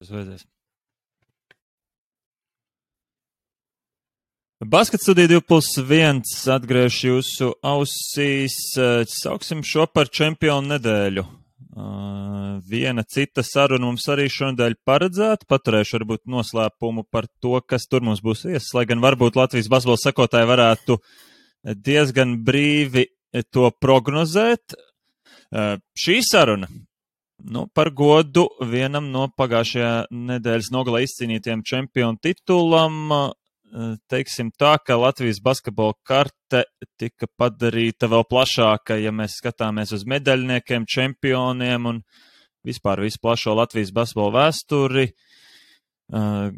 Tas vajadzēs. Basket studija 2+1 atgriež jūsu ausīs. Sauksim šo par čempionu nedēļu. Viena cita saruna mums arī šonadēļ paredzēta. Paturēšu varbūt noslēpumu par to, kas tur mums būs viesis, lai gan varbūt Latvijas basketbola sekotāji varētu diezgan brīvi to prognozēt. Šī saruna par godu vienam no pagājušajā nedēļas nogalē izcīnītiem čempionu titulam. Teiksim tā, ka Latvijas basketbola karte tika padarīta vēl plašāka, ja mēs skatāmies uz medaļniekiem, čempioniem un vispār visu plašo Latvijas basketbola vēsturi.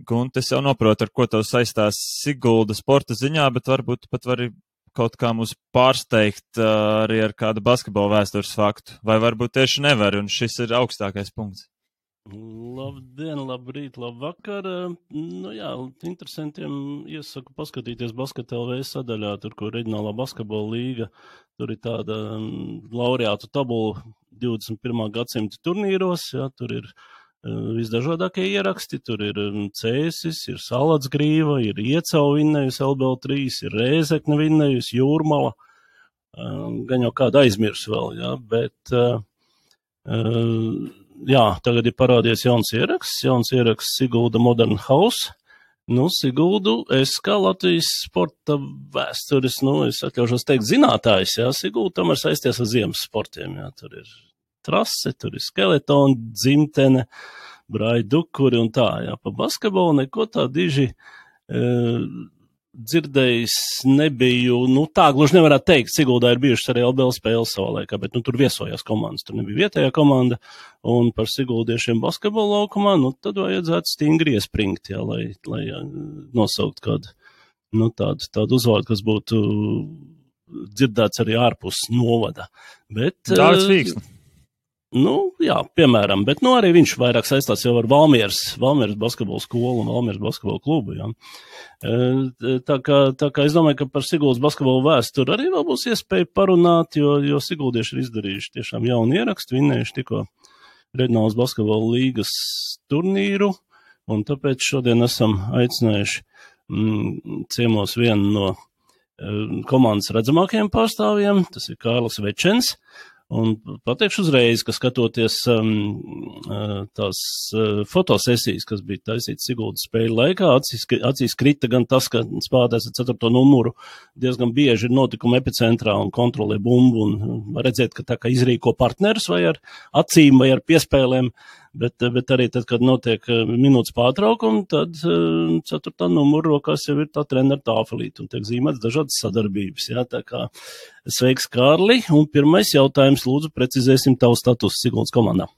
Gunte, es jau noprotu, ar ko tev saistās Sigulda sporta ziņā, bet varbūt pat vari kaut kā mūs pārsteigt arī ar kādu basketbola vēstures faktu. Vai varbūt tieši nevar, un šis ir augstākais punkts. Labdien, labrīt, labvakar. Interesantiem iesaku paskatīties Basket LV sadaļā, tur, kur reģionālā basketbola līga, tur ir tāda laureātu tabula 21. gadsimta turnīros, tur ir visdažādākie ieraksti, tur ir Cēsis, ir Salatsgrīva, ir Iecau vinnējusi LBL3, ir Rēzekne vinnējusi, Jūrmala, gan jau kādu aizmirs vēl, bet... tagad ir parādies jauns ieraksts Sigulda Modern House. Siguldu es kā Latvijas sporta vēstures, es atļaušos teikt zinātājs, Sigulda tomēr saisties ar ziemas sportiem, tur ir trase, tur ir skeletoni, dzimtene, braidukuri un tā, pa basketbolu neko tā diži dzirdējis nebiju, tā gluži nevarētu teikt, Siguldā ir bijušas arī LBL spēles savā laikā, bet tur viesojās komandas, tur nebija vietējā komanda, un par siguldiešiem basketbola laukumā, tad vajadzētu stingri iespringt, lai nosaukt kādu, tādu uzvārdu, kas būtu dzirdēts arī ārpus novada. Dārts Vīksni. Piemēram, bet arī viņš vairāk saistās jau ar Valmieras basketbola skolu un Valmieras basketbola klubu, Tā kā es domāju, ka par Siguldas basketbola vēsturi arī vēl būs iespēja parunāt, jo siguldieši ir izdarījuši tiešām jaunu ierakstu, vinnējuši tikko reģionālas basketbola līgas turnīru, un tāpēc šodien esam aicinājuši ciemos vienu no komandas redzamākajiem pārstāvjiem, tas ir Kārlis Večens. Un pateikšu uzreiz, ka skatoties tās fotosesijas, kas bija taisītas Siguldas spēļu laikā, acīs krita gan tas, ka spēlētājs ar 4. numuru diezgan bieži ir notikuma epicentrā un kontrolē bumbu un redzēt, ka tā kā izrīko partnerus vai ar acīm vai ar piespēlēm, bet arī tad, kad notiek minūtes pārtraukumi, tad 4. numuru rokās jau ir tā trenera tāfelīte un tiek zīmēts dažādas sadarbības, tā kā sveiks, Kārli, un pirmais jautājums, lūdzu, precizēsim tavu statusu Siguldas komandā.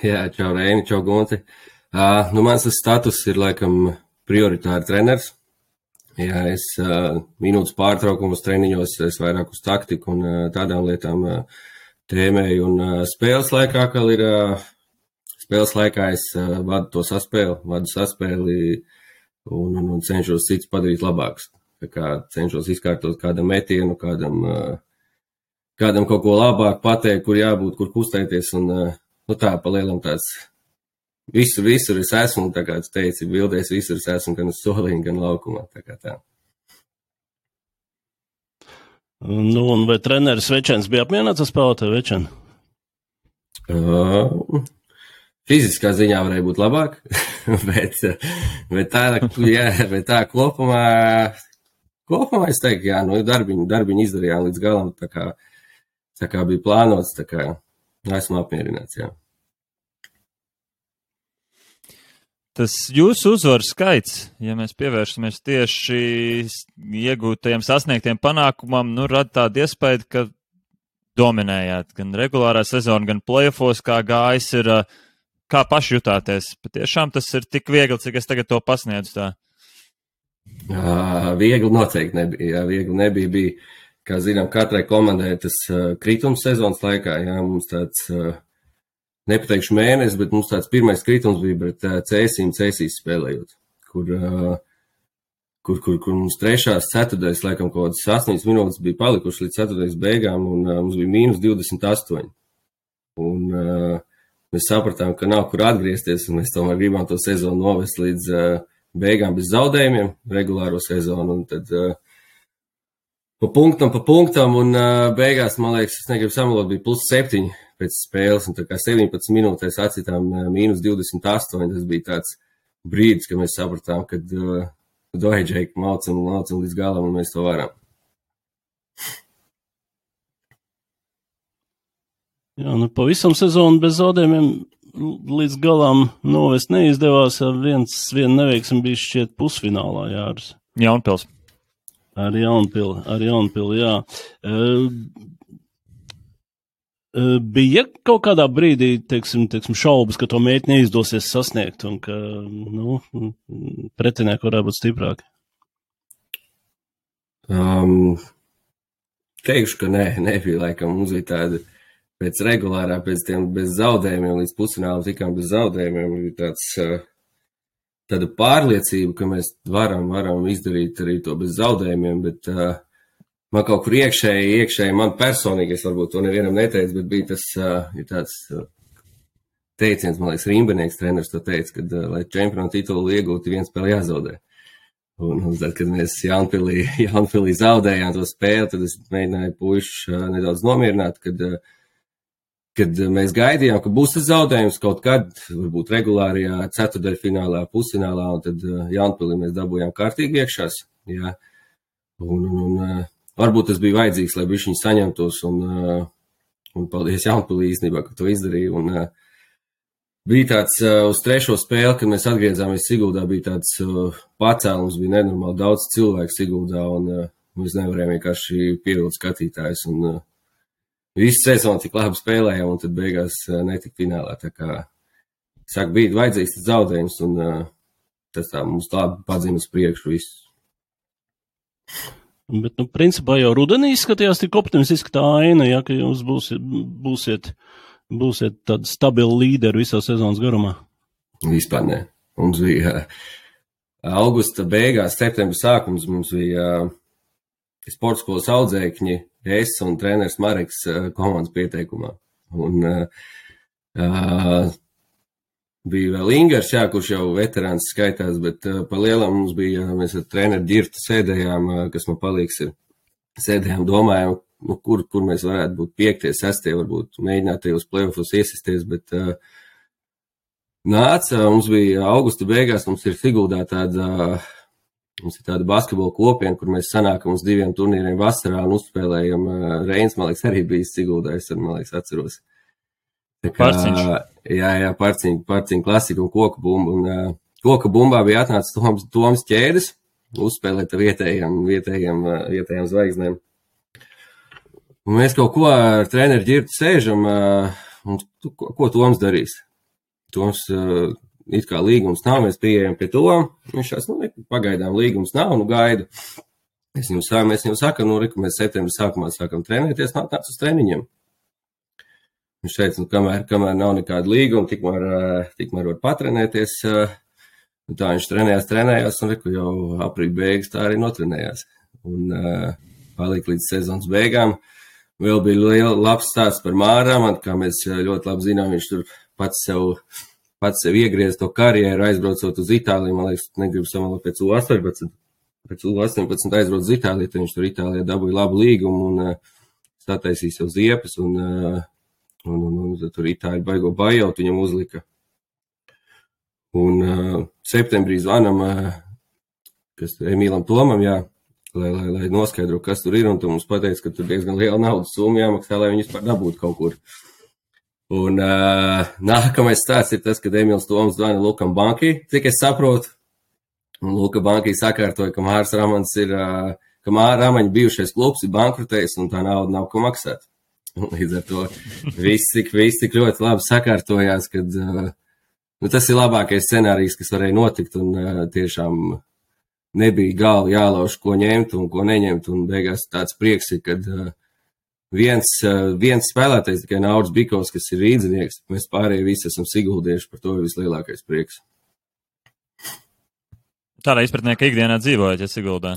Čau Reini, čau Gunti. Mans status ir laikam prioritāri treners. Es minūtes pārtraukumus treniņos, es vairāk uz taktiku un tādām lietām tēmēju, un spēles laikā es vadu saspēli un cenšos cits padarīt labāks. Tā kā cenšos izkārtot kādam metienu, kādam kaut ko labāk pateikt, kur jābūt, kur kustēties, un tā pa lielam tāds visur es esmu, tā kā tu teici, bildēs visur es esmu, gan uz soliņa, gan laukumā, tā kā tā. Un vai treneris Večens bija apmierināts ar spēlētāju Večenu? Fiziskā ziņā varēja būt labāk, bet tā kopumā es teiktu, darbiņu izdarījām līdz galam, tā kā bija plānots, tā kā esmu apmierināts, Tas jūsu uzvaru skaits, ja mēs pievēršamies tieši iegūtajiem sasniegtiem panākumam, rada tādu iespēju, ka dominējāt gan regulārā sezona, gan playoffos, kā gājis ir, kā paši jutāties. Patiešām tas ir tik viegli, cik es tagad to pasniedzu tā. Viegli noteikti nebija, bija, kā zinām, katrai komandai tas kritums sezonas laikā, mums tāds, nepateikšu mēnesis, bet mums tāds pirmais kritums bija pret Cēsīs spēlējot, kur mums trešās ceturtais, laikam, kaut kādas 8 minūtes bija palikuši līdz ceturtais beigām, un mums bija -28. Un mēs sapratām, ka nav kur atgriezties, un mēs tomēr gribam to sezonu novest līdz beigām bez zaudējumiem, regulāro sezonu, un tad pa punktam, un beigās, man liekas, es negribu samalot, bija +7 pēc spēles, un tā kā 17 minūtēs atcitām -28, tas bija tāds brīdis, kad mēs sapratām, kad Džeika maucam līdz galam, un mēs to varam. Jā, nu pavisam sezonu bez zaudējumiem līdz galam novest neizdevās, viena neveiksme bija šķiet pusfinālā, Jāris. Jaunpils. Ar Jaunpili, jā. Bija kaut kādā brīdī, teiksim, šaubas, ka to mērķi neizdosies sasniegt un ka, pretinieki varētu būt stiprāki? Teikšu, ka nebija laikam, mums bija tāda pēc regulārā, pēc tiem bez zaudējumiem, līdz pusfinālam tikām bez zaudējumiem, bija tāda pārliecība, ka mēs varam izdarīt arī to bez zaudējumiem, bet man kaut kur iekšēji, man personīgi, es varbūt to nevienam neteicu, bet bija tas, ir tāds teiciens, man liekas, Rimbenieks treneris to teica, kad, lai čempionu titulu iegūtu, viens spēle jāzaudē. Un tad, kad mēs Jaunpilī zaudējām to spēli, tad es mēģināju puišus nedaudz nomierināt, kad mēs gaidījām, ka būs tas zaudējums kaut kad, varbūt regulārajā ceturtdaļfinālā, pusfinālā, un tad Jaunpilī mēs dabūjām kārtīgi iekšās. Jā. Un varbūt tas bija vajadzīgs, lai bišķiņi saņemtos, un paldies Jaunpilī īstenībā, ka to izdarīja. Un bija tāds uz trešo spēli, kad mēs atgriezāmies Siguldā, bija tāds pacēlums, bija nenormāli daudz cilvēku Siguldā, un mēs nevarējām vienkārši pievilkt skatītājus. Un visu sezonu tik labi spēlējām, un tad beigās netika finālā. Tā kā, saka, bija vajadzīgs tas zaudējums, un tas tā mums labi padzina uz priekšu visu. Bet, principā jau rudenī skatījās tik optimistiski tā aina, ja, ka jūs būsiet tādi stabili līderi visā sezonas garumā. Vispār ne. Mums bija augusta beigās, septembra sākums, mums bija sporta skolas audzēkņi, es un treneris Mareks komandas pieteikumā. Un bija vēl Ingers, jā, kurš jau veterāns skaitās, bet pa lielam mums bija, mēs ar treneri Ģirtu sēdējām, kas man palīgs ir, sēdējām, domājām, kur mēs varētu būt 5., 6., varbūt mēģināt tajos playoffos iesisties, bet nāca, mums bija augusta beigās, mums ir Siguldā mums ir tāda basketbola kopiena, kur mēs sanākam uz 2 turnīriem vasarā un uzspēlējam. Reins, man liekas, arī bijis Siguldā, es man liekas, atceros. Parciņš. Jā, parciņu klasika un koku bumba. Un koka bumbā bija atnācis Toms Ķēdes, uzspēlēt vietējām zvaigznēm. Un mēs kaut ko ar treneri Ģirtu sēžam, un ko Toms darīs? Toms it kā līgums nav, mēs pieejam pie Toma. Viņš šās, pagaidām līgums nav, gaidu. Mēs viņam sakam, ka mēs septembra sākumā sākam trenēties, nāc uz treniņiem. Viņš teica, kamēr nav nekāda līguma, tikmēr var patrenēties. Tā viņš trenējās, un jau aprīļa beigas tā arī notrenējās. Un palika līdz sezonas beigām. Vēl bija labs stāsts par Māram, kā mēs ļoti labi zinām, viņš tur pats sev iegriez to karjeru, aizbraucot uz Itāliju, man liekas, negribu samalot pēc U18. Pēc U18 aizbrauc uz Itāliju, tad viņš tur Itālijā dabūja labu līgumu un sataisīja sev ziepes, un tur Itāļi baigo bajaut viņam uzlika. Un septembrī zvanam, kas Emīlam Tomam, jā, lai noskaidro, kas tur ir, un tu mums pateic, ka tur diezgan liela naudas summa jāmaksā, lai viņus par dabūtu kaut kur. Un nākamais stāsts ir tas, kad Emīls Toms zvana Lukam Bankī, cik es saprotu. Un Luka Bankī sakārtoja, ka Mārs Ramans ka Māra Ramaņa bijušais klubs ir bankrutējis un tā nauda nav ko maksāt. Un līdz ar to viss tik ļoti labi sakārtojās, kad tas ir labākais scenārijs, kas varēja notikt, un tiešām nebija galva jālauž, ko ņemt un ko neņemt, un beigās tāds prieks ir, kad viens spēlētais, tikai Nauris Bikovs, kas ir rīdzinieks, mēs pārējie visi esam siguldieši, par to ir vislielākais prieks. Tādā izpratnē, ka ikdienā dzīvojat, ja Siguldā?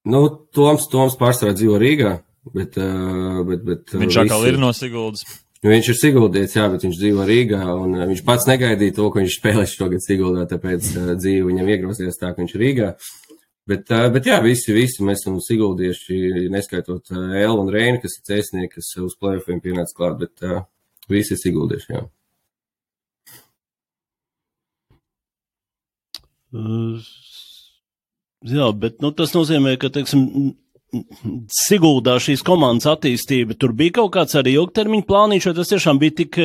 Toms pārsvarā dzīvo Rīgā, bet viņš atkal ir no Siguldas? Viņš ir Siguldietis, jā, bet viņš dzīvo Rīgā, un viņš pats negaidīja to, ka viņš spēlēs šogad Siguldā, tāpēc dzīve viņam iegrozījās tā, ka viņš ir Rīgā. Bet jā, visi mēs esam Siguldieši, neskaitot Elvu un Reini, kas ir cēsnieki, kas uz play-offiem pienāca klāt, bet visi ir Siguldieši, jā. Jā, bet tas nozīmē, ka, teiksim, Siguldā šīs komandas attīstība, tur bija kaut kāds arī ilgtermiņa plāniņš, vai tas tiešām bija tik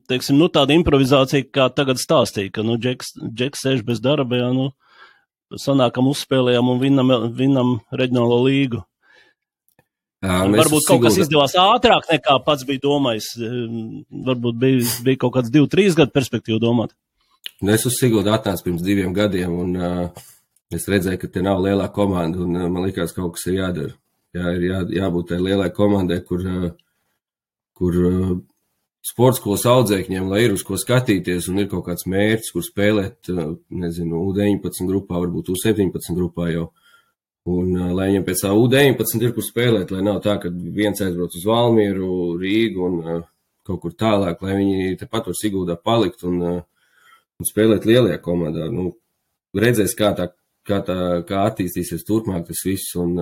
teiksim, tāda improvizācija, kā tagad stāstīja, ka, Džeks sēž bez darba, jā, sanākam uzspēlējām un vinnam reģionālo līgu. Varbūt kaut kas izdevās ātrāk nekā pats bija domājis, varbūt bija kaut kāds 2-3 gadu perspektīvu domāt. Es uz Siguldu atnācu pirms 2 gadiem, un es redzēju, ka te nav lielā komanda, un man likās, kaut kas ir jādara. Jā, ir jābūt tai lielai komandai, kur sportskolas audzēkņiem, lai ir uz ko skatīties, un ir kaut kāds mērķis, kur spēlēt, nezinu, U19 grupā, varbūt U17 grupā jau. Un lai viņam pēc tā U19 ir, kur spēlēt, lai nav tā, ka viens aizbrauc uz Valmieru, Rīgu un kaut kur tālāk, lai viņi tepat var Siguldā palikt un spēlēt lielajā komandā. Redzēs, kā attīstīsies turpmāk tas viss, un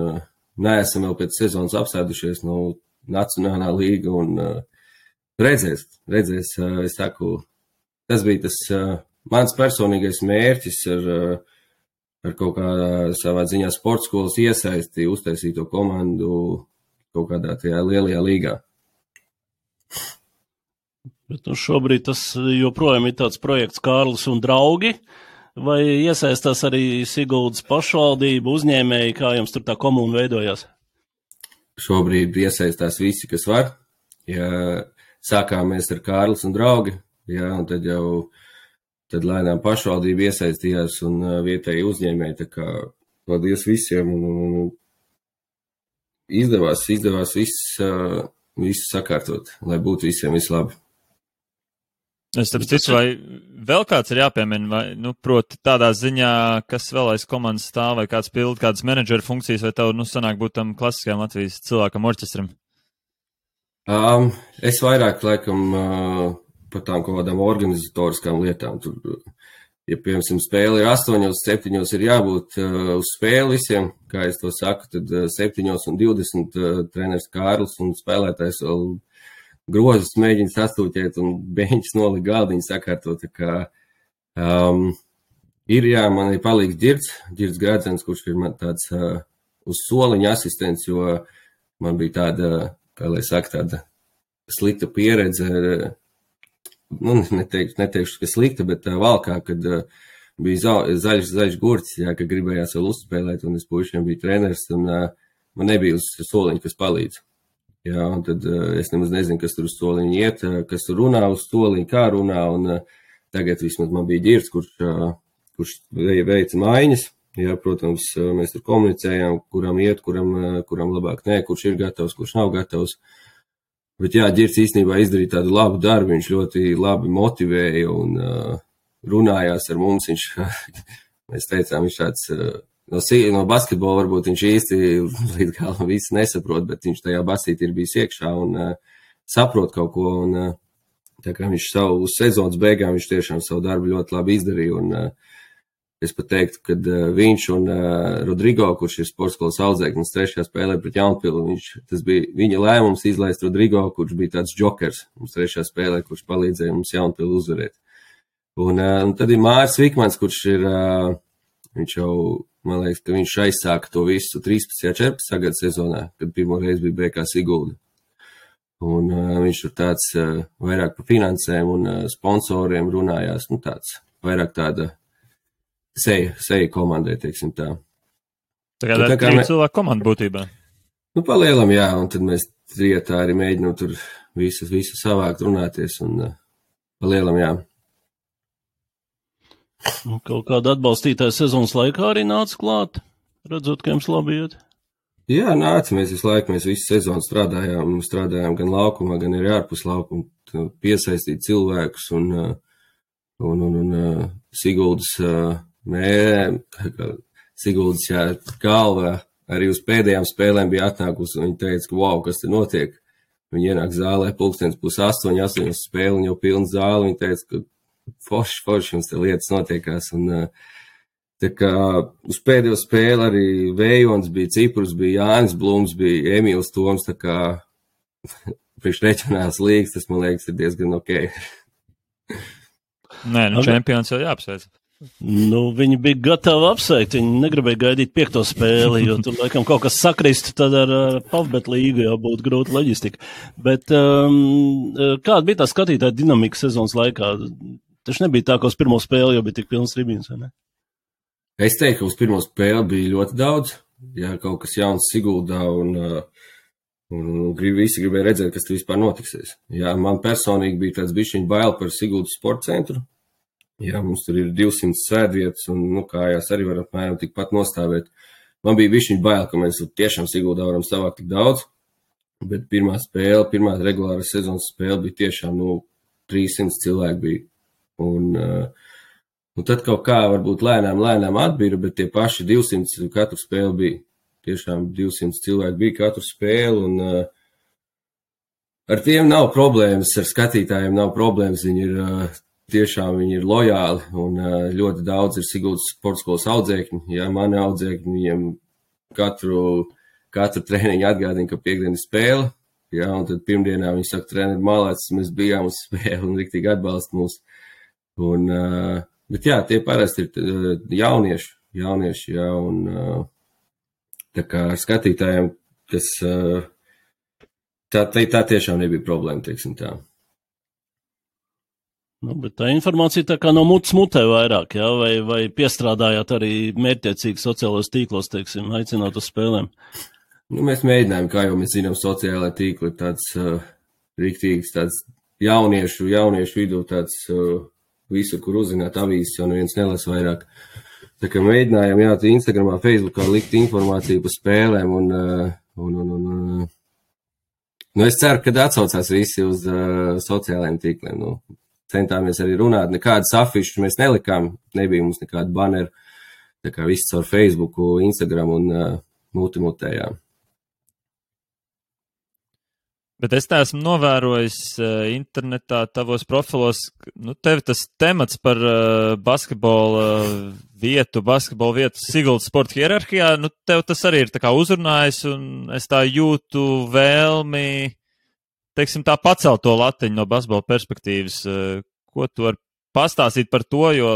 neesam vēl pēc sezonas apsēdušies no Nacionālā līga, un redzēs, es saku, tas bija tas mans personīgais mērķis ar kaut kādā savā ziņā sportskolas iesaisti, uztaisīt to komandu kaut kādā tajā lielajā līgā. Bet šobrīd tas joprojām ir tāds projekts Kārlis un draugi, vai iesaistās arī Siguldas pašvaldība, uzņēmēji, kā jums tur tā komuna veidojās? Šobrīd iesaistās visi, kas var. Ja sākām mēs ar Kārlis un draugi, jā, un tad lēnām pašvaldība iesaistījās un vietēji uzņēmēji, tā kā paldies visiem, un izdevās viss sakārtot, lai būtu visiem vislabi. Es tāpēc ticu, vai vēl kāds ir jāpiemina, vai, proti tādā ziņā, kas vēl aiz komandas stāv, vai kāds pild kādas menedžera funkcijas, vai tev, sanāk būt tam klasiskajam Latvijas cilvēkam orķestram? Es vairāk, laikam, par tām kaut kādām organizatoriskām lietām. Tur, ja, piemēram, spēle ir 8:07 ir jābūt uz spēli visiem, kā es to saku, tad 7:20 treneris Kārlis un spēlētājs vēl grozas mēģina sastūķēt un beņķis nolika galdiņu sakārtot, tā kā man ir palīgs Ģirds Gradzens, kurš ir man tāds uz soliņa asistents, jo man bija tāda, kā lai saka, tāda slikta pieredze, neteikšu, ka slikta, bet valkā, kad bija zaļš gurts, jā, ka gribējās vēl uzspēlēt, un es puišiem biju treneris, un man nebija uz soliņa, kas palīdz. Jā, un tad es nemaz nezinu, kas tur uz soliņa iet, kas tur runā uz soliņa, kā runā, un tagad vismaz man bija Ģirds, kurš veica maiņas. Jā, protams, mēs tur komunicējām, kuram iet, kuram labāk nē, kurš ir gatavs, kurš nav gatavs. Bet jā, Ģirds īstenībā izdarīja tādu labu darbu, viņš ļoti labi motivēja un runājās ar mums. Mēs teicām, viņš tāds... No basketbola varbūt viņš īsti līdz galam visu nesaprot, bet viņš tajā basītī ir bijis iekšā un saprot kaut ko. Un, tā kā viņš uz sezonas beigām viņš tiešām savu darbu ļoti labi izdarīja. Un es pat teiktu, ka viņš un Rodrigo, kurš ir sportskolas audzēknis, 3. spēlē pret Jaunpili, tas bija viņa lēmums izlaist Rodrigo, kurš bija tāds džokers mums 3. spēlē, kurš palīdzēja mums Jaunpili uzvarēt. Un tad ir Māris Vikmans, kurš ir, viņš jau, man liekas, ka viņš aizsāka to visu 13. 14. gada sezonā, kad pirmo reizi bija BK Sigulda. Un viņš tur tāds vairāk par finansēm un sponsoriem runājās, tāds vairāk tāda seja komandai, teiksim tā. Tā kā cilvēku komanda būtībā. Palielam, jā, un tad mēs trietā arī mēģinām tur visu savākt, runāties, un palielam, jā. Kaut kāda atbalstītāja sezonas laikā arī nāca klāt, redzot, ka jums labi iet? Jā, nāca, mēs visu sezonu strādājām gan laukumā, gan arī ārpus laukuma, piesaistīt cilvēkus un Siguldas Siguldas, jā, galva arī uz pēdējām spēlēm bija atnākusi, un viņi teica, ka wow, kas te notiek? viņi ienāk zālē 7:30, 8 spēle, un jau pilna zāle, viņi teica, ka forši jums te lietas notiekās, un tā kā uz pēdējo spēli arī Vējons bija, Ciprus bija, Jānis Blums bija, Emīls Toms, tā kā priekš reģionāls līgas, tas, man liekas, ir diezgan ok. Nē, čempions jau jāapsveic. Viņi bija gatavi apsveikt, viņi negribēja gaidīt 5. spēli, jo tur laikam kaut kas sakristu, tad ar Pavbet līgu jau būtu grūta loģistika. Bet kāda bija tā skatītāja dinamika sezonas laikā? Taču nebija tā, ka uz pirmo spēli jau bija tik pilns tribīns, vai ne? Es teiktu, ka uz pirmo spēli bija ļoti daudz, ja kaut kas jauns Siguldā, un visi gribēja redzēt, kas tur vispār notiksies. Jā, man personīgi bija tāds bišķiņ bail par Siguldas sporta centru. Jā, mums tur ir 200 sēdvietas, un kājās arī var apmēram tikpat nostāvēt. Man bija bišķiņ bail, ka mēs tiešām Siguldā varam savākt tik daudz, bet pirmā regulāra sezonas spēle bija tiešām 300 cilvēki bija. Un tad kaut kā varbūt lēnām atbira, bet tie paši 200 katru spēli bija. Tiešām 200 cilvēki bija katru spēli, un ar tiem nav problēmas, ar skatītājiem nav problēmas, viņi ir lojāli, un ļoti daudz ir Siguldas sporta skolas audzēkņi. Jā, mani audzēkņi, viņiem katru treniņu atgādina, ka piekdiena spēle, jā, un tad pirmdienā viņi saka, treneri malēts, mēs bijām uz spēli un riktīgi atbalsta mūs. Bet jā, tie parasti ir jaunieši, jā, un tā kā ar skatītājiem, kas tā tiešām nebija problēma, teiksim tā. Bet tā informācija tā kā no mutes mutē vairāk, jā? Vai piestrādājāt arī mērķtiecīgi sociālos tīklos, teiksim, aicinot uz spēlēm? Mēs mēģinājām, kā jau mēs zinām, sociālai tīkli ir tāds riktīgs, tāds jauniešu vidū, tāds visu, kur uzzināt avīzes, jo neviens nelas vairāk. Tā kā mēģinājām, jā, Instagramā, Facebookā likt informāciju par spēlēm, un es ceru, ka atsaucās visi uz sociālajiem tīkliem, Centāmies arī runāt, nekādas afišas mēs nelikām, nebija mums nekāda banera, tā kā viss caur Facebooku, Instagram un multimutējām. Bet es tā esmu novērojis internetā tavos profilos, tev tas temats par basketbola vietu Siguldas sporta hierarhijā, tev tas arī ir tā kā uzrunājis, un es tā jūtu vēlmi, teiksim, tā pacelt to latiņu no basketbola perspektīvas. Ko tu vari pastāstīt par to, jo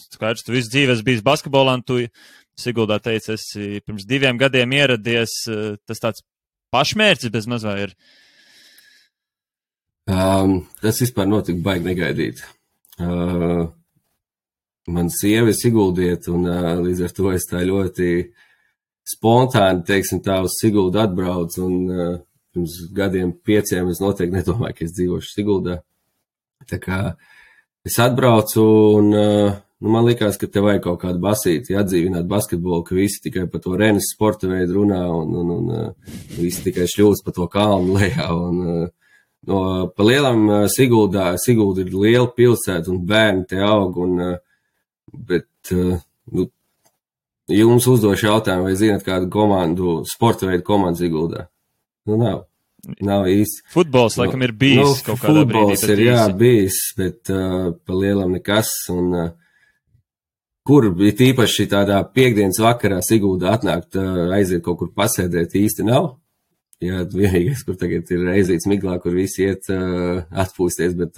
skaidrs, tu visu dzīvi esi bijis basketbolā, un tu Siguldā teici, esi pirms 2 gadiem ieradies, tas tāds pašmērķis bez maz vai ir? Tas vispār notika baigi negaidīt. Man sieva ir siguldieta, un līdz ar to es tā ļoti spontāni, teiksim tā, uz Siguldu atbraucu, un pirms 5 gadiem es noteikti nedomāju, ka es dzīvošu Siguldā. Tā kā es atbraucu, un man likās, ka te vajag kaut kādu basīti atdzīvināt basketbolu, ka visi tikai par to Renes sporta veidu runā, un visi tikai šļūst pa to kalnu lejā. Pa lielam Sigulda ir liela pilsēta, un bērni te aug, bet jums uzdošu jautājumu, vai zināt kādu sporta veidu komandu Siguldā? Nav īsti. Futbols, laikam, ir bijis kaut kādā brīdī. Futbols ir, jā, bijis, bet pa lielam nekas. Un kur bija tīpaši tādā piekdienas vakarā Siguldā atnākt, aiziet kaut kur pasēdēt, īsti nav. Jā, vienīgais, kur tagad ir aizīts miglā, kur visi iet atpūsties, bet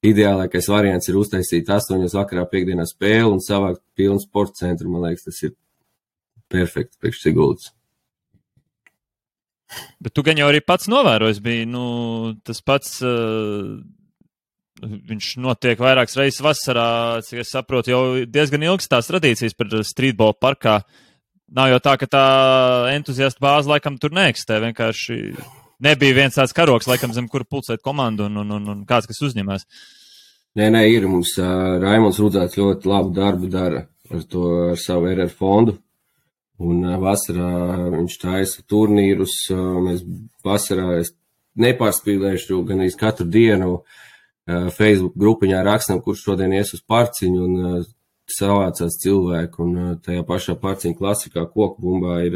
ideālākais variants ir uztaisīt 8 vakarā piekdienā spēli un savākt pilnu sporta centru. Man liekas, tas ir perfekti priekš Siguldas. Bet tu gan jau arī pats novērojis bija, tas pats, viņš notiek vairākas reizes vasarā, cik es saprotu, jau diezgan ilgas tās tradīcijas par streetball parkā. Nav jau tā, ka tā entuziasta bāze laikam tur neeksistē, vienkārši nebija viens tāds karoks, laikam zem kura pulcēt komandu un kāds, kas uzņemās. Nē, ir, mums Raimonds Rudzāts ļoti labu darbu dara ar savu RR fondu. Un vasarā viņš taisa turnīrus, mēs vasarā es nepārspīlēšu gan iz katru dienu Facebook grupiņā rakstam, kurš šodien ies uz parciņu, un savācās cilvēku, un tajā pašā parciņu klasikā Kokbumbā ir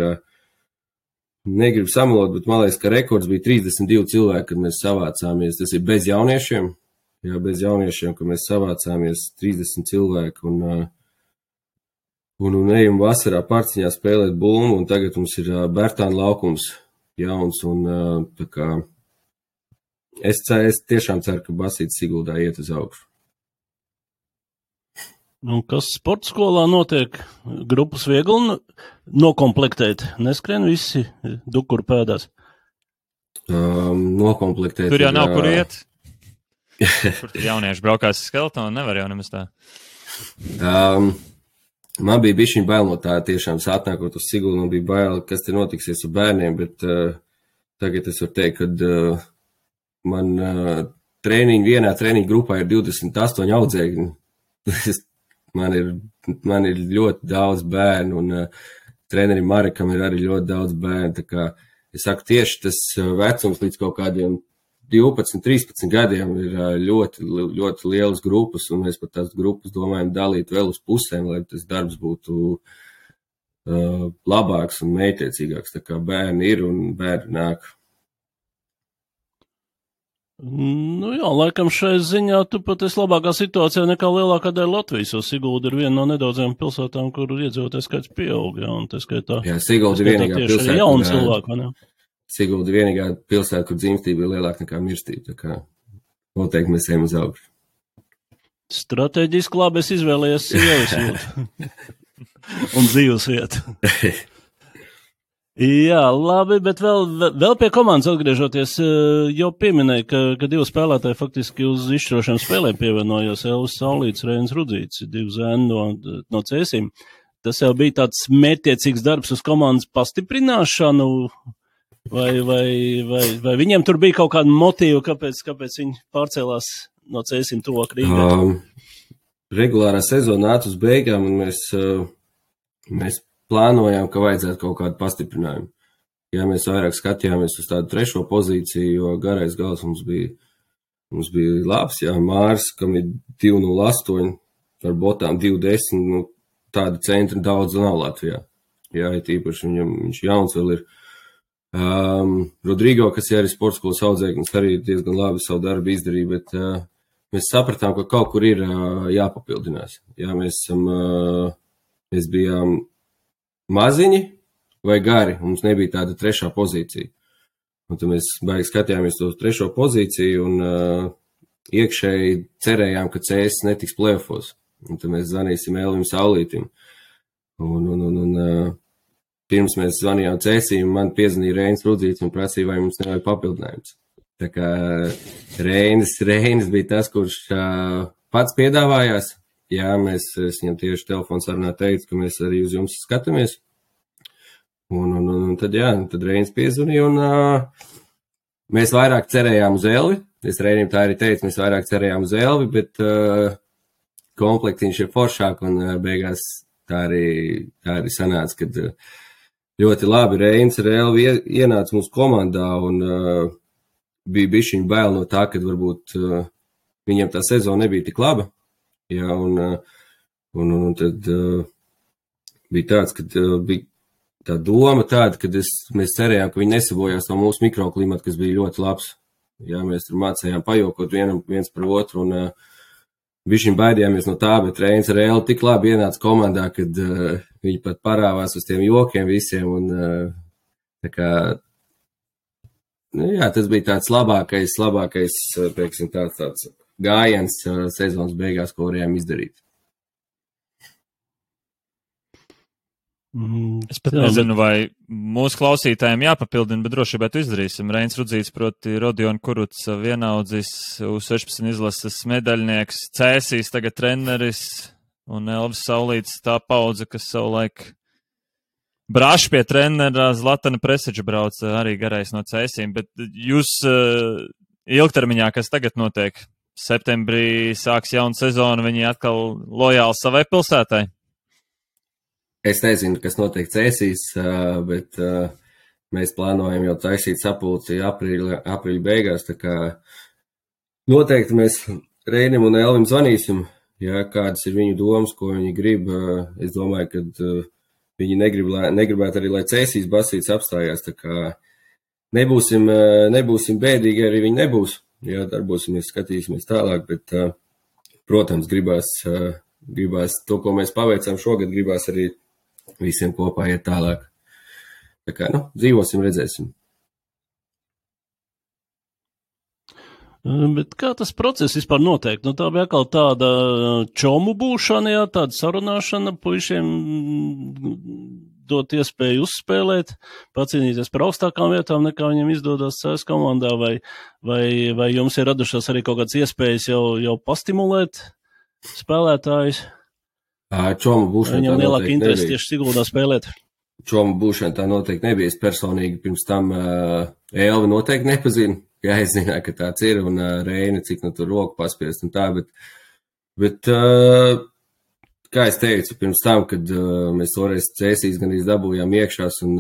negribu samalot, bet man liekas, ka rekords bija 32 cilvēki, kad mēs savācāmies. Tas ir bez jauniešiem. Jā, bez jauniešiem, kad mēs savācāmies 30 cilvēki un ejam vasarā Parciņā spēlēt bulmu, un tagad mums ir Bērtāna laukums jauns, un tā kā es tiešām ceru, ka Basītis Siguldā iet uz augšu. Un kas sporta skolā notiek? Grupas viegli nokomplektēt? Neskrien visi dukuru pēdās? Nokomplektēt. Tur jau nav kur iet. Kur jaunieši braukās skeletonu, nevar jau nemaz tā. Man bija bišķiņ bail no tā, tiešām atnākot uz Sigulu, man bija bail, kas te notiksies ar bērniem, bet tagad es varu teikt, ka man vienā treniņu grupā ir 28 audzēkņi. Man ir ļoti daudz bērnu, un trenerim Marekam ir arī ļoti daudz bērnu. Tā kā es saku, tieši tas vecums līdz kaut kādiem 12, 13 gadiem ir ļoti, ļoti lielas grupas, un mēs pat tās grupas domājam dalīt vēl uz pusēm, lai tas darbs būtu labāks un mētiecīgāks. Tā kā bērni ir un bērni nāk. Nu jā, laikam šai ziņā tu pat esi labākā situācijā nekā lielākā daļa Latvijas, jo Sigulda ir viena no nedaudzajām pilsētām, kur iedzīvotāju skaits pieaug, jā, un tā skaitā. Jā, Sigulda ir vienīgā pilsēta. Jauni cilvēki, ne? Sigulda ir vienīgā pilsēta, kur dzimstība ir lielāka nekā mirstība, tā kā noteikti mēs ejam uz augšu. Stratēģiski labi es izvēlējies sievas jūtu un dzīves vietu. Jā, labi, bet vēl pie komandas atgriežoties, jau pieminēja, ka divi spēlētāji faktiski uz izšķirošām spēlēm pievienojos, Elvis Saulīts, Reinis Rudzīts, divi zēni no Cēsīm. Tas jau bija tāds mērķtiecīgs darbs uz komandas pastiprināšanu, vai viņiem tur bija kaut kāda motīva, kāpēc viņi pārcēlās no Cēsīm tuvāk Rīgai? Regulārā sezona nāca uz beigām, un mēs plānojām, ka vajadzētu kaut kādu pastiprinājumu. Jā, mēs vairāk skatījāmies uz tādu trešo pozīciju, jo garais gals mums bija labs, jā, Mārs, kam ir 2.08, ar botām 2.10, nu, tāda centra daudz nav Latvijā. Jā, ir tīpaši viņš jauns vēl ir. Rodrigo, kas ir arī sporta skolas audzēknis, arī diezgan labi savu darbu izdarīja, bet mēs sapratām, ka kaut kur ir jāpapildinās. Jā, mēs bijām maziņi vai gari, mums nebija tāda trešā pozīcija. Un tad mēs baigi skatījāmies uz trešo pozīciju un iekšēji cerējām, ka CS netiks play-offos. Un tad mēs zvanīsim Elvim Saulītim. Un pirms mēs zvanījām CS-im, man piezvanīja Reinis Rudzīts un prasīja, vai mums nevajag papildinājums. Tā kā Reinis bija tas, kurš pats piedāvājās. Jā, es viņam tieši telefons sarunā teicu, ka mēs arī uz jums skatāmies. Un tad Reinis piezvanīja, un mēs vairāk cerējām uz Elvi. Es Reinim tā arī teicu, mēs vairāk cerējām uz Elvi, bet komplektiņš ir foršāk, un beigās tā arī sanāca, kad ļoti labi Reinis ar Elvi ienāca mūsu komandā, un bija bišķiņ bail no tā, kad varbūt viņam tā sezona nebija tik laba. Jā, un tad bija tāds, kad bija tā doma tāda, kad mēs cerējām, ka viņi nesabojās no mūsu mikroklimata, kas bija ļoti labs. Jā, mēs tur mācējām pajokot viens par otru, un bišķiņ baidījāmies no tā, bet Reinis ar Elvi tik labi ienāca komandā, kad viņi pat parāvās uz tiem jokiem visiem, un tā kā, nu jā, tas bija tāds labākais, teiksim, tāds gājiens sezonas beigās, ko varējām izdarīt. Es pat nezinu, vai mūsu klausītājiem jāpapildina, bet droši vien izdarīsim. Reinis Rudzīts, proti Rodion Kuruts, vienaudzis, U16 izlases medaļnieks, Cēsīs, tagad treneris, un Elvis Saulīts, tā paudze, kas savulaik brāš pie trenera Zlatana Preseģa brauca arī garais no Cēsīm, bet jūs ilgtermiņā, kas tagad notiek? Septembrī sāks jauna sezona, viņi atkal lojāli savai pilsētai? Es nezinu, kas notiek Cēsīs, bet mēs plānojam jau taisīt sapulci aprīļa beigās, tā kā noteikti mēs Reinim un Elvim zvanīsim, ja kādas ir viņu domas, ko viņi grib. Es domāju, ka viņi negribētu arī, lai Cēsīs basīts apstājās, tā kā nebūsim bēdīgi, arī viņi nebūs. Jā, darbosimies, skatīsimies tālāk, bet, protams, gribās to, ko mēs paveicām šogad, gribās arī visiem kopā iet tālāk. Tā kā, dzīvosim, redzēsim. Bet kā tas process vispār notiek? Tā bija atkal tāda čomu būšana, jā, tāda sarunāšana puišiem dot iespēju uzspēlēt, pacīnīties par augstākām vietām, nekā viņiem izdodas CS komandā, vai jums ir radušās arī kaut kādas iespējas jau pastimulēt spēlētājus? Čomu būšana viņam lielāka interesi tieši Siguldā spēlēt? Čomu būšana tā noteikti nebija. Es personīgi pirms tam Elvi noteikti nepazinu. Jā, es zināju, ka tāds ir, un Reini, cik tur roku paspiest un tā, bet kā es teicu, pirms tam, kad mēs toreiz Cēsīs gan dabūjām iekšās, un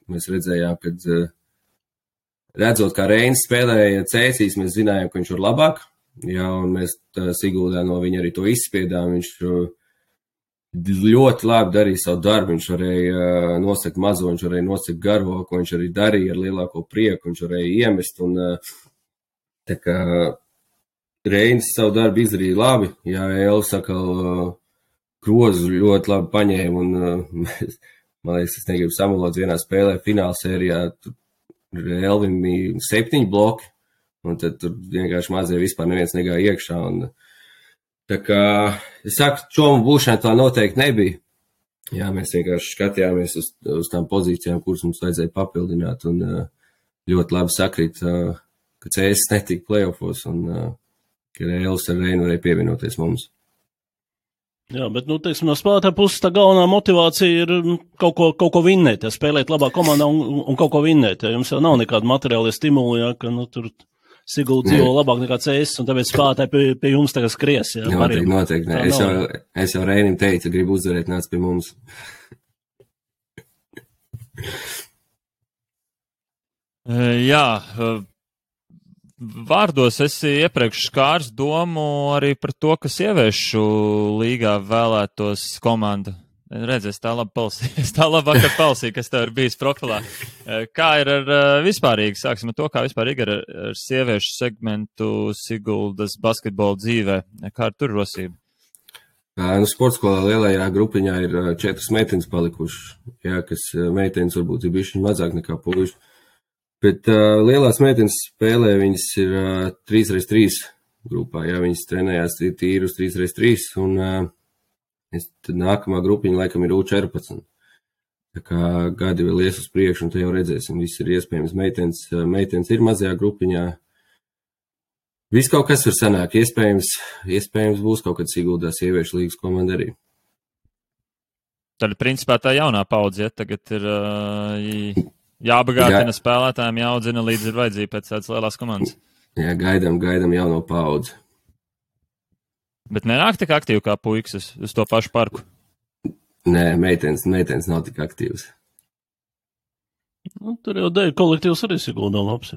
mēs redzējām, kad redzot, kā Reinis spēlēja Cēsīs, mēs zinājām, ka viņš var labāk, jā, un mēs Siguldā no viņa arī to izspiedām, viņš ļoti labi darīja savu darbu, viņš varēja nosakt mazo, viņš varēja nosakt garo, ko viņš arī darīja ar lielāko prieku, viņš varēja iemest, un tā kā Reinis savu darbu izdarīja labi, jā, Elvis atkal grozu ļoti labi paņēma, un man liekas, es negribu samalot vienā spēlē finālsērijā, tur Elvim bija 7 bloki, un tad tur vienkārši mazie vispār neviens negāja iekšā, un tā kā, es saku, čomu būšana tā noteikti nebija. Jā, mēs vienkārši skatījāmies uz tām pozīcijām, kuras mums vajadzēja papildināt, un ļoti labi sakrīt, ka CS netika playoffos, un ka Elvis ar Reinu varēja pievienoties mums. Jā, bet, teiksim, no spēlētāja puses tā galvenā motivācija ir kaut ko vinnēt, ja spēlēt labā komandā un kaut ko vinnēt, ja jums jau nav nekāda materiāla stimuli, ja, ka, tur Sigulda dzīvo labāk nekā CS, un tāpēc spēlētāji pie jums tagad skries. Jā, noteikti. Es jau Reinim teicu, gribu uzvarēt, nāc pie mums. Jā, vārdos esi iepriekš skārs domu arī par to, ka sieviešu līgā vēlētos komanda. Redz, es tā labi vakar palsīju, kas tev ir bijis profilā. Kā ir ar vispārīgi, sāksim ar to, kā vispārīgi ar sieviešu segmentu Siguldas basketbola dzīvē? Kā ar tur rosību? Sportskolā lielajā grupiņā ir 4 meitenes palikušas, jā, kas meitenes varbūt ir bišķiņ mazāk nekā puiši. Bet lielās meitenes spēlē, viņas ir 3x3 grupā, jā, viņas trenējās tīri uz 3x3, un tad nākamā grupiņa laikam ir U14. Tā kā gadi vēl ies uz priekšu, un te jau redzēsim, viss ir iespējams. Meitenes ir mazajā grupiņā. Viss kaut kas var sanāk. Iespējams būs kaut kad Siguldā sieviešu līgas komanda arī. Tad, principā, tā jaunā paudze, ja tagad ir jābagātina spēlētājiem, jāaudzina līdz ir vajadzība pēc tādas lielās komandas. Jā, gaidam jauno paudzi. Bet nenāk tik aktīvi kā puikas uz to pašu parku? Nē, meitenes nav tik aktīvas. Tur jau dēļ kolektīvs arī Siguldā labs.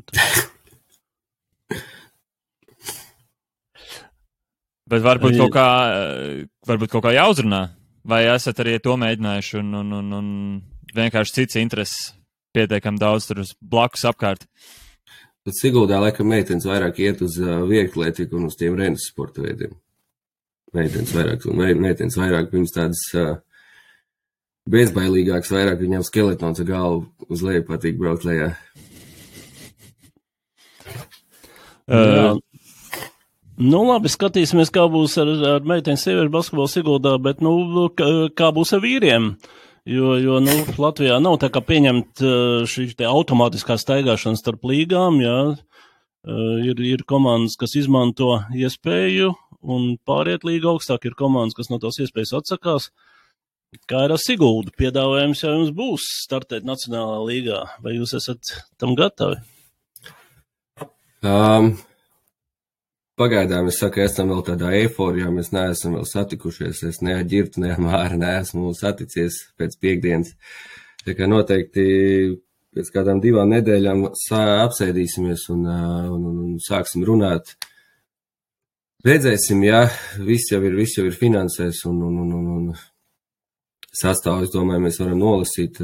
Bet varbūt kaut kā jāuzrunā? Vai esat arī to mēģinājuši un vienkārši cits intereses pietiekami daudz tur uz blakus apkārt? Bet Siguldā laikam meitenes vairāk iet uz vieglatlētiku un uz tiem rennes sporta veidiem. Meitenes vairāk, viņas tādas bezbailīgākas, vairāk viņām skeletons ar galvu uz leju patīk braukt lejā. Labi, skatīsimies, kā būs ar meiteņu sieviešu basketbolu Siguldā, bet, kā būs ar vīriem? Jo Latvijā nav tā kā pieņemt šī te automātiskā staigāšana starp līgām, jā. Ir komandas, kas izmanto iespēju un pāriet līga augstāk, ir komandas, kas no tās iespējas atsakās. Kā ir ar Siguldu? Piedāvājums jau jums būs startēt Nacionālā līgā. Vai jūs esat tam gatavi? Pagaidām, es saku, esam vēl tādā eiforijā, mēs neesam vēl satikušies, es ne ar Ģirtu, ne ar Māri neesmu saticies pēc piekdienas. Tā kā noteikti pēc kādām 2 nedēļām apsēdīsimies un sāksim runāt. Redzēsim, jā, viss jau ir finansēs un sastāvu, es domāju, mēs varam nolasīt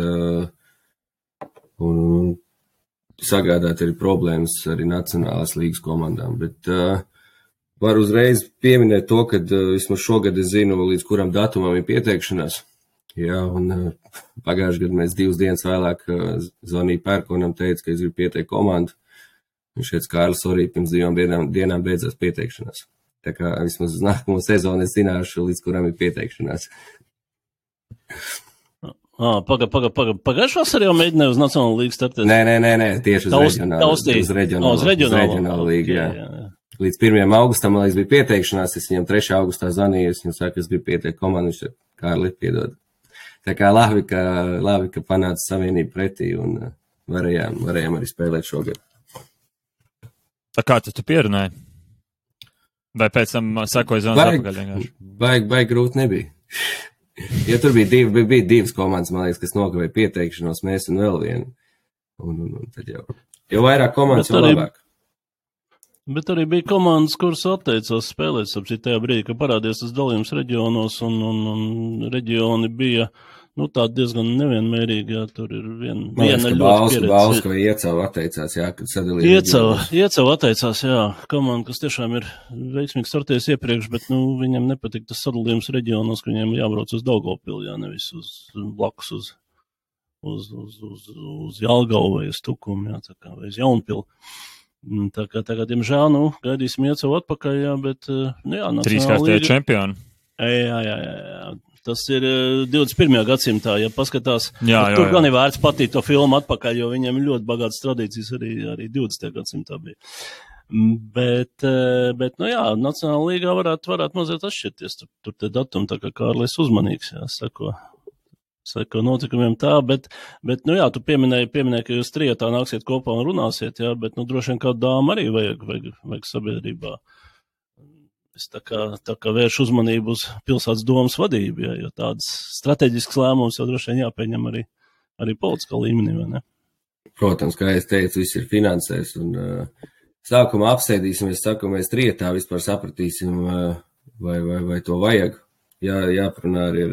un sagādāt arī problēmas arī nacionālās līgas komandām. Bet var uzreiz pieminēt to, ka vismaz šogad es zinu, līdz kuram datumam ir pieteikšanās. Jā, un pagājušajā gadā mēs 2 dienas vēlāk zvanīju Pērkonam, teica, ka es gribu pieteikt komandu. Viņš teica, Kārlis, arī pirms 2 dienām beidzās pieteikšanās. Tā kā vismaz uz nākamo sezonu es zināšu, līdz kuram ir pieteikšanās. Pagājušā vasarā jau mēģināja uz Nacionālo līgu startēt? Nē, tieši uz reģionālo līgu, jā. Līdz 1. augustam, man liekas, bija pieteikšanās, es viņam 3. augustā zvanīju, es viņam saku, es gribu pieteikt komandu, viņš Kārli, piedod. Tā kā labi, ka panāca savienību pretī un varējām arī spēlēt šogad. Tā kā tu pierunāji? Vai pēc tam sekoja zonas atpakaļ vienkārši? Baigi grūti nebija. Ja tur bija 2 komandas, man liekas, kas nokavēja pieteikšanos, mēs un vēl vienu. Un tad jau vairāk komandas, jau labāk. Bet arī bija komandas, kuras atteicās spēlēt, sapcīt tajā brīdī, ka parādījās tas dalījums reģionos, un reģioni bija, tādi diezgan nevienmērīgi, jā, tur ir viena ļoti pieredze. Bauska vai Iecava atteicās, jā, kad sadalīja Iecava atteicās, jā, komanda, kas tiešām ir veiksmīgi startējis iepriekš, bet, viņam nepatīk tas sadalījums reģionos, ka viņiem jābrauc uz Daugavpili, jā, nevis uz blakus uz Jelgavu vai uz Tukumu, jā, tā kā, vai uz Jaunpili. Tā kā, diemžēl, gaidīsim Iecavu atpakaļ, jā, bet, jā, Nacionāla līga. 3-kārtēji čempioni. Jā. Tas ir 21. gadsimtā, ja paskatās. Jā. Tur gan ir vērts patīt to filmu atpakaļ, jo viņiem ir ļoti bagātas tradīcijas arī 20. gadsimtā bija. Bet jā, Nacionāla līgā varētu mazliet atšķirties. Tur te datumi, tā kā Kārlis uzmanīgs, jā, seko notikumiem tā, bet jā, tu pieminēji, ka jūs trietā nāksiet kopā un runāsiet, jā, bet, droši vien kādu dāmu arī vajag sabiedrībā. Es tā kā vērš uzmanību uz pilsētas domas vadību, jo tādas strateģiskas lēmumus jau droši vien jāpieņem arī politiskā līmenī, vai ne? Protams, kā es teicu, viss ir finansēs, un sākumā apsēdīsimies, mēs trietā vispār sapratīsim, vai to vajag. Jāparunā arī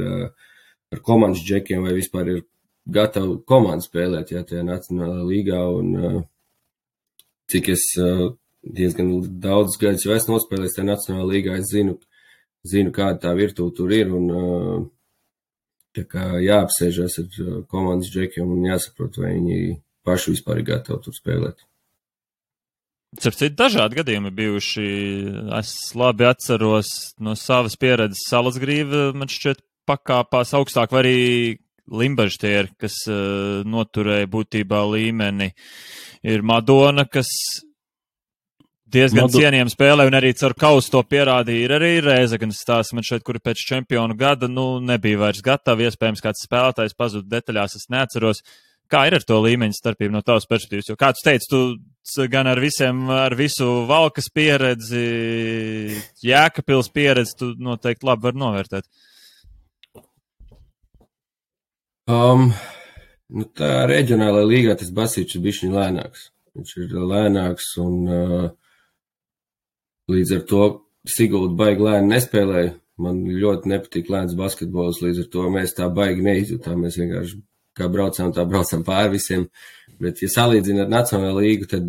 ar komandas džekiem, vai vispār ir gatava komanda spēlēt, jā, tajā Nacionālajā līgā, un cik es diezgan daudz gadus jau esmu nospēlējis tajā Nacionālajā līgā, es zinu, kāda tā virtūte tur ir, un tā kā jāapsēžas ar komandas džekiem un jāsaprot, vai viņi paši vispār ir gatavi tur spēlēt. Citu dažādi gadījumi bijuši. Es labi atceros no savas pieredzes Salasgrīva, man šķiet, pakāpās augstāk, vai arī Limbažtieri, kas noturēja būtībā līmeni. Ir Madona, kas diezgan cienījami spēlē, un arī caur kausu to pierādīja. Ir arī Rēzeknes stāsts, man šeit, kuri pēc čempionu gada, nebija vairs gatavi, iespējams, kāds spēlētājs pazuda detaļās, es neatceros. Kā ir ar to līmeņa starpību no tavas perspektīvas? Jo, kā tu teici, tu gan ar visu Valkas pieredzi, Jēkabpils pieredzi, tu noteikti labi var novērtēt. Tā reģionālajā līgā tas basīts ir bišķiņ lēnāks. Viņš ir lēnāks, un līdz ar to Sigulda baigi lēni nespēlēja. Man ļoti nepatīk lēns basketbols, līdz ar to mēs tā baigi neizjūtām. Mēs vienkārši kā braucām pāri visiem. Bet, ja salīdzina ar Nacionālo līgu, tad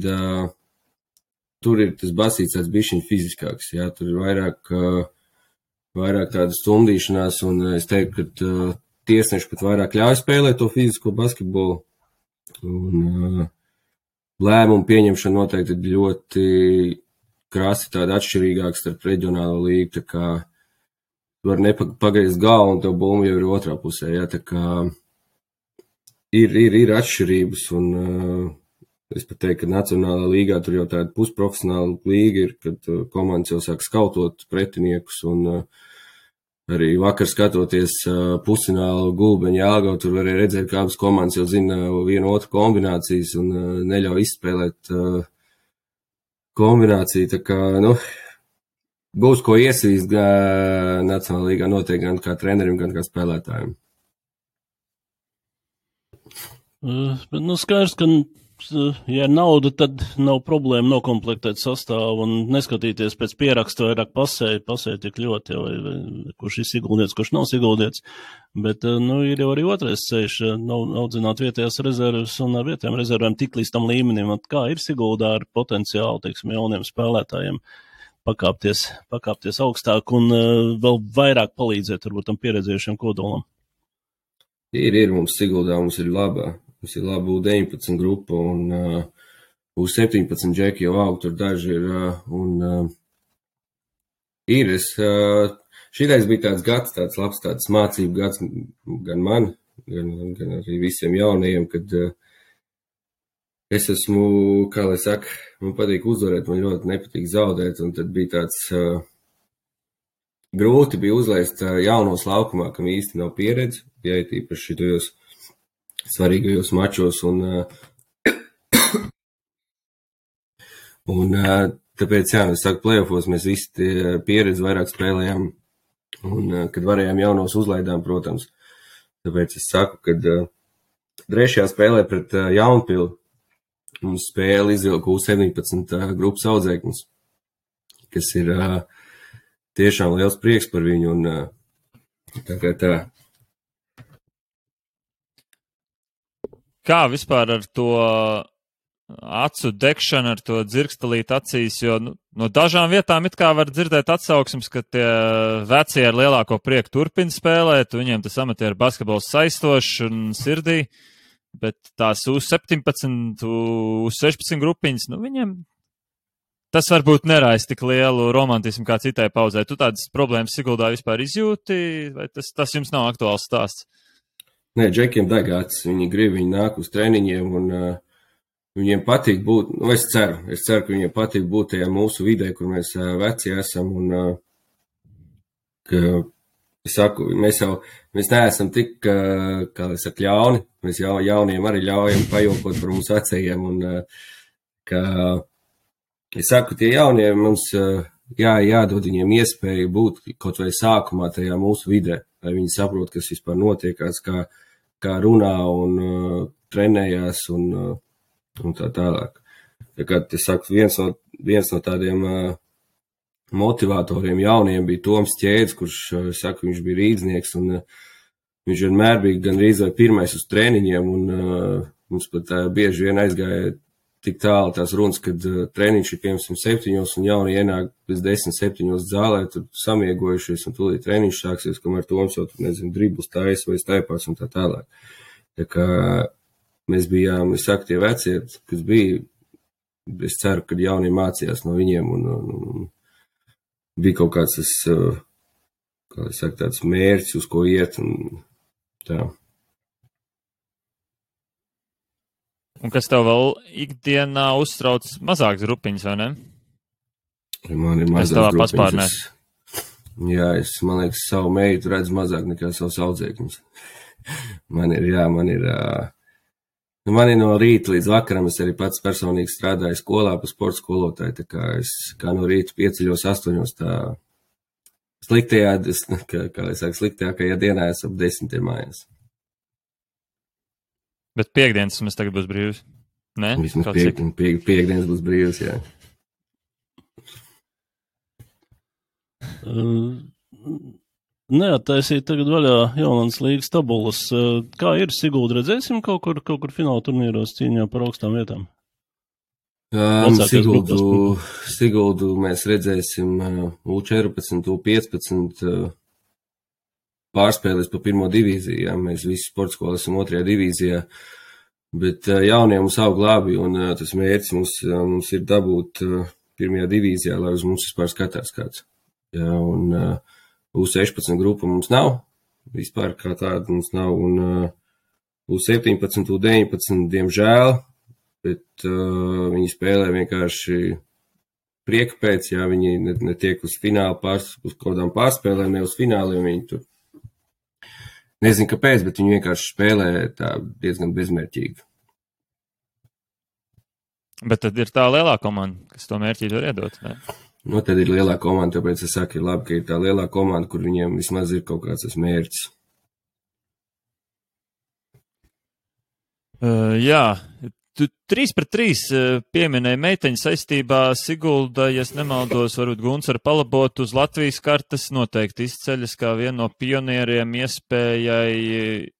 tur ir tas basīts tāds bišķiņ fiziskāks. Jā, tur ir vairāk tāda stumdīšanās, un es teiktu, ka tiesneši pat vairāk ļauj spēlēt to fizisko basketbolu. Un lēmumu pieņemšana noteikti ir ļoti krasi tāda atšķirīgāka starp reģionālo līgu, tā kā var nepagriezt galvu un tev bumba jau ir otrā pusē, jā, tā kā ir atšķirības, un es pat teiktu, ka Nacionālā līgā tur jau tāda pusprofesionāla līga ir, kad komandas jau sāk skautot pretiniekus, un arī vakar skatoties pusfinālu Gulbeņu Jelgavu, tur varēja redzēt, ka abas komandas jau zina vienu otru kombinācijas un neļauj izspēlēt kombināciju. Tā kā, būs ko iesvīst Nacionālajā līgā noteikti gan kā trenerim, gan kā spēlētājiem. Bet, skaidrs, ka ja nauda, tad nav problēma nokomplektēt sastāvu un neskatīties pēc pieraksta vairāk pasē tik ļoti, vai kurš ir ieguldīts, kurš nav ieguldīts. Bet, ir jau arī otrais ceļš, audzināt vietējās rezerves un ar vietējām rezervēm tik līdz tam līmenim, kā ir Siguldā ar potenciālu, teiksim, jauniem spēlētājiem pakāpties augstāk un vēl vairāk palīdzēt, varbūt, tam pieredzējušiem kodolam. Ir mums Siguldā, mums ir laba U19 grupa un U17 džeki jau aug, tur daži ir, šitais bija tāds gads, tāds labs, tāds mācību gads gan man, gan arī visiem jaunajiem, kad es esmu, kā lai saka, man patīk uzvarēt, man ļoti nepatīk zaudēt, un tad bija tāds grūti bija uzlaist jaunos laukumā, kam īsti nav pieredze, ja ir īpaši šitajos svarīgajos mačos, un tāpēc, es saku, playoffos mēs visi pieredzi vairāk spēlējām, un kad varējām jaunos uzlaidām, protams. Tāpēc es saku, kad trešajā spēlē pret Jaunpili mums spēle izvilka U17 grupas audzēknis, kas ir tiešām liels prieks par viņu, un tā. Kā vispār ar to acu degšanu, ar to dzirkstelīt acīs, jo no dažām vietām it kā var dzirdēt atsauksmes, ka tie vecie ar lielāko prieku turpina spēlēt, viņiem tas amatieru basketbols saistošs un sirdī, bet tās U17, U16 grupiņas, viņiem tas varbūt neraisa tik lielu romantismu kā citai pauzē. Tu tādas problēmas Siguldā vispār izjūti, vai tas jums nav aktuāls stāsts? Nē, džekiem degāts, viņi grib, viņi nāk uz treniņiem, un viņiem patīk būt, es ceru, ka viņiem patīk būt tajā mūsu vidē, kur mēs veci esam, un, ka, es saku, mēs neesam tik, kā es saku, ļauni, mēs jauniem arī ļaujam pajokot par mums vecajiem, un, ka, es saku, tie jaunie mums, jādod viņiem iespēju būt kaut vai sākumā tajā mūsu vidē, lai viņi saprot, kas vispār notiekās, kā runā un trenējās un tā tālāk. Tā kā, es saku, viens no tādiem motivatoriem jauniem bija Toms Ķēdes, kurš, saku, viņš bija rīdznieks, un viņš vienmēr bija gandrīz vai pirmais uz treniņiem, un mums pat bieži vien aizgāja tik tālu tās runas, kad treniņš ir piemēram 7, un jauni ienāk pēc 10-7 zālē, tur samiegojušies, un tūlīt treniņš sāksies, kamēr Toms jau, driblus taisa vai staipās un tā tālāk. Tā kā mēs bijām, es saku, tie vecie, kas bija, es ceru, ka jaunie mācījās no viņiem, un bija kaut kāds tas, kā es saku, tāds mērķis, uz ko iet, un tā. Un kas tev vēl ikdienā uztrauc mazākas grupiņas, vai ne? Man ir mazākas grupiņas. Jā, man liekas, savu meitu redz mazāk nekā savus audzēkņus. Man ir no rīta līdz vakaram, es arī pats personīgi strādāju skolā pa sporta skolotāju, tā kā es kā no rīta pieceļos 8, tā sliktajākajā dienā es ap 10 mājās. Bet piekdienas mēs tagad būs brīvs, ne? Vismaz piekdienas būs brīvs, jā. Neattaisīt tagad vaļā Jaunlandes līgas tabulas. Kā ir Sigulda, redzēsim kaut kur fināla turnīros cīņā par augstām vietām? Siguldu mēs redzēsim U14, U15 pārspēlēs pa pirmo divīziju, jā, mēs visi sporta skolas esam 2. divīzijā, bet jaunie mums aug labi, un tas mērķis mums ir dabūt 1. divīzijā, lai uz mums vispār skatās kāds. Jā, un U16 grupa mums nav, vispār kā tāda mums nav, un U17, U19, diemžēl, bet viņi spēlē vienkārši prieka pēc, jā, viņi netiek uz finālu, uz kādām pārspēlēm, ne uz fināliem, viņi tur nezinu, kāpēc, bet viņi vienkārši spēlē tā diezgan bezmērķīgi. Bet tad ir tā lielā komanda, kas to mērķīti var iedot, ne? Tad ir lielā komanda, tāpēc es saku, ir labi, ka ir tā lielā komanda, kur viņiem vismaz ir kaut kāds tas mērķis. Jā, Tu 3-3 pieminēji meiteņu saistībā Sigulda, ja es nemaldos, varbūt Gunts ar palabot uz Latvijas kartes noteikti izceļas kā viena no pionieriem iespējai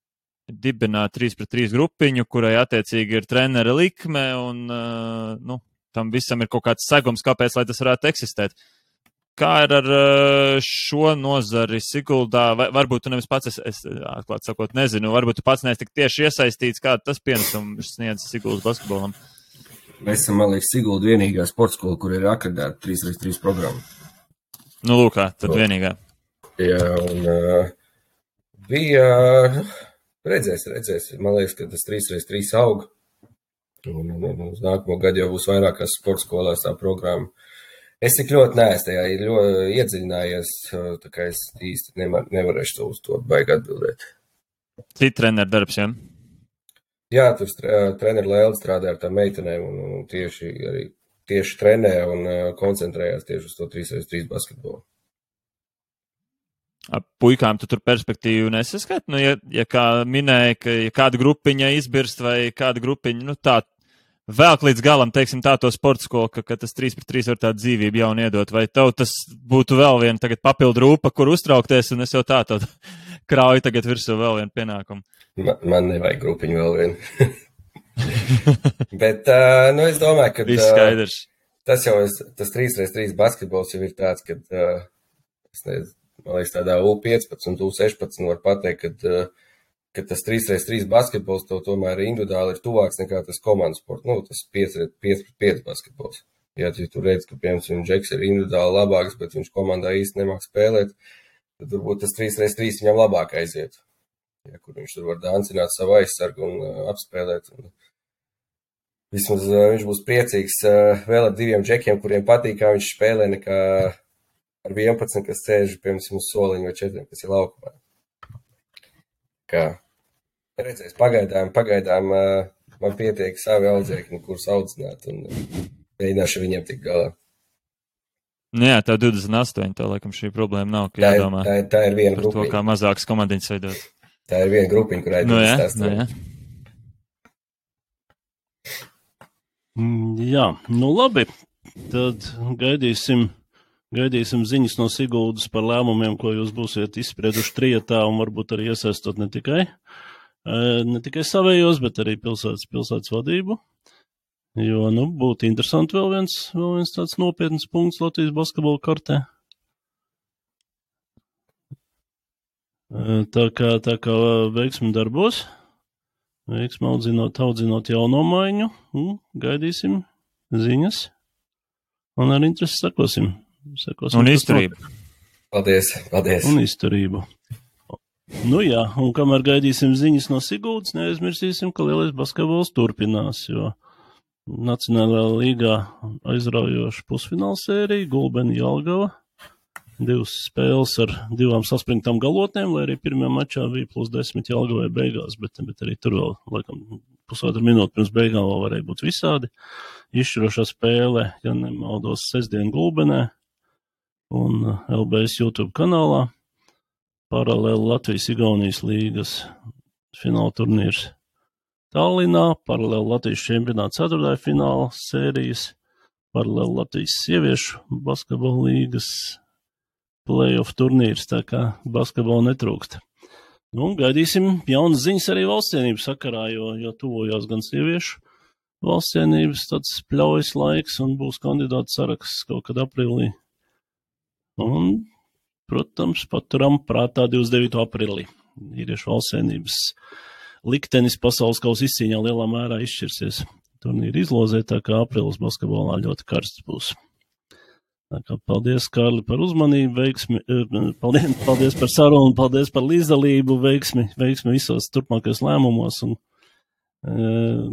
dibināt 3-3 grupiņu, kurai attiecīgi ir trenera likme un, tam visam ir kaut kāds segums, kāpēc, lai tas varētu eksistēt. Kā ir ar šo nozari Siguldā? Varbūt tu nevis pats, es atklāt sakot, nezinu, varbūt tu pats neesi tik tieši iesaistīts, kāda tas pienesums sniedz Siguldas basketbolam? Mēs esam, man liekas, Sigulda vienīgā sporta skola, kur ir akreditēta 3x3 programma. Nu, lūkā, tad vienīgā. Jā, un bija, redzēs. Man liekas, ka tas 3x3 aug. Un uz nākamo gadu jau būs vairākās sporta skolās tā programma. Es tik ļoti neesmu tajā iedziļinājies, tā kā es īsti nevarēšu uz to baigi atbildēt. Cita treneru darbs, ja? Jā, tur treneru Lēli strādā ar tām meitenēm un tieši trenē un koncentrējās tieši uz to 3x3 basketbolu. Puikām tu tur perspektīvu nesaskat? Nu, ja kā minēja, ka ja kāda grupiņa izbirst vai kāda grupiņa, tā vēl līdz galam, teiksim, tā to sporta skolu, ka tas 3x3 var tādu dzīvību jaunu iedot, vai tev tas būtu vēl viena tagad papildu rūpa, kur uztraukties, un es jau tā krauju tagad virsū vēl vienu pienākumu? Man nevajag grupiņu vēl vienu. Bet, es domāju, ka viss skaidrs. Tas 3x3 basketbols jau ir tāds, kad, es nezinu, man liekas, tādā U15 un U16 var pateikt, ka tas 3x3 basketbols tev tomēr individuāli ir tuvāks nekā tas komandas sports, tas 5x5 basketbols. Ja tu redz, ka, piemēram, Džeks ir individuāli labāks, bet viņš komandā īsti nemāk spēlēt, tad varbūt tas 3x3 viņam labāk aiziet. Ja, kur viņš tur var dancināt savu aizsargu un apspēlēt. Un vismaz viņš būs priecīgs vēl ar 2 džekiem, kuriem patīk, kā viņš spēlē, nekā ar 11, kas sēž, piemēram, uz soliņu vai 4, kas ir laukumā. Kā redzēs, pagaidām man pietiek savi audzēkņi, kurus audzināt un mēģināšu viņiem tik galā. Jā, tev 28, tā laikam šī problēma nav, ka jādomā tā ir viena par grupiņa. To, kā mazākas komandiņas veidot. Tā ir viena grupiņa, kurai jā. Jā, labi, tad gaidīsim ziņas no Siguldas par lēmumiem, ko jūs būsiet izsprieduši trietā un varbūt arī iesaistot ne tikai savējos, bet arī pilsētas vadību. Jo, būtu interesanti vēl viens tāds nopietns punkts Latvijas basketbola kartē. Tā kā veiksmi darbos, veiksmi audzinot jauno maiņu, gaidīsim ziņas un ar interesi sakosim. Un izturību. Paldies. Un izturību. Jā, un kamēr gaidīsim ziņas no Siguldas, neaizmirsīsim, ka lielais basketbols turpinās, jo Nacionālajā līgā aizraujoša pusfināla sērija, Gulbeni Jelgava, 2 spēles ar 2 saspringtām galotnēm, lai arī pirmajā mačā bija +10 Jelgavai beigās, bet arī tur vēl, laikam, pusotru minūti pirms beigām vēl varēja būt visādi. Izšķirošā spēle, ja nemaldos, sestdien Gulbenē un LBS YouTube kanālā. Paralēli Latvijas-Igaunijas līgas fināla turnīrs Tallinā, paralēli Latvijas čempionāta 4. fināla sērijas, paralēli Latvijas sieviešu basketbola līgas play-off turnīrs, tā kā basketbola netrūkst. Gaidīsim jaunas ziņas arī valstsienības sakarā, jo tuvojās gan sieviešu valstsienības tāds pļaujas laiks un būs kandidātu saraksts kaut kad aprīlī. Un, protams, paturam prātā 29. aprīlī. Vīriešu valstsienības liktenis pasaules kausa izcīņā lielā mērā izšķirsies. Turnīri izlozē, tā kā aprīlis basketbolā ļoti karsts būs. Tā kā paldies, Kārli, par uzmanību, veiksmi, paldies par sarunu, paldies par līdzdalību, veiksmi visos turpmākajos lēmumos un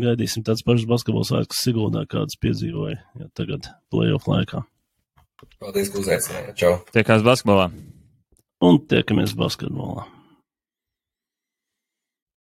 gaidīsim tāds pašs basketbols vairs Siguldā, kādas piedzīvoja tagad play-off laikā. Paldies, ka uzaicinājāt. Čau. Tiekās basketbolā. Un tiekamies basketbolā.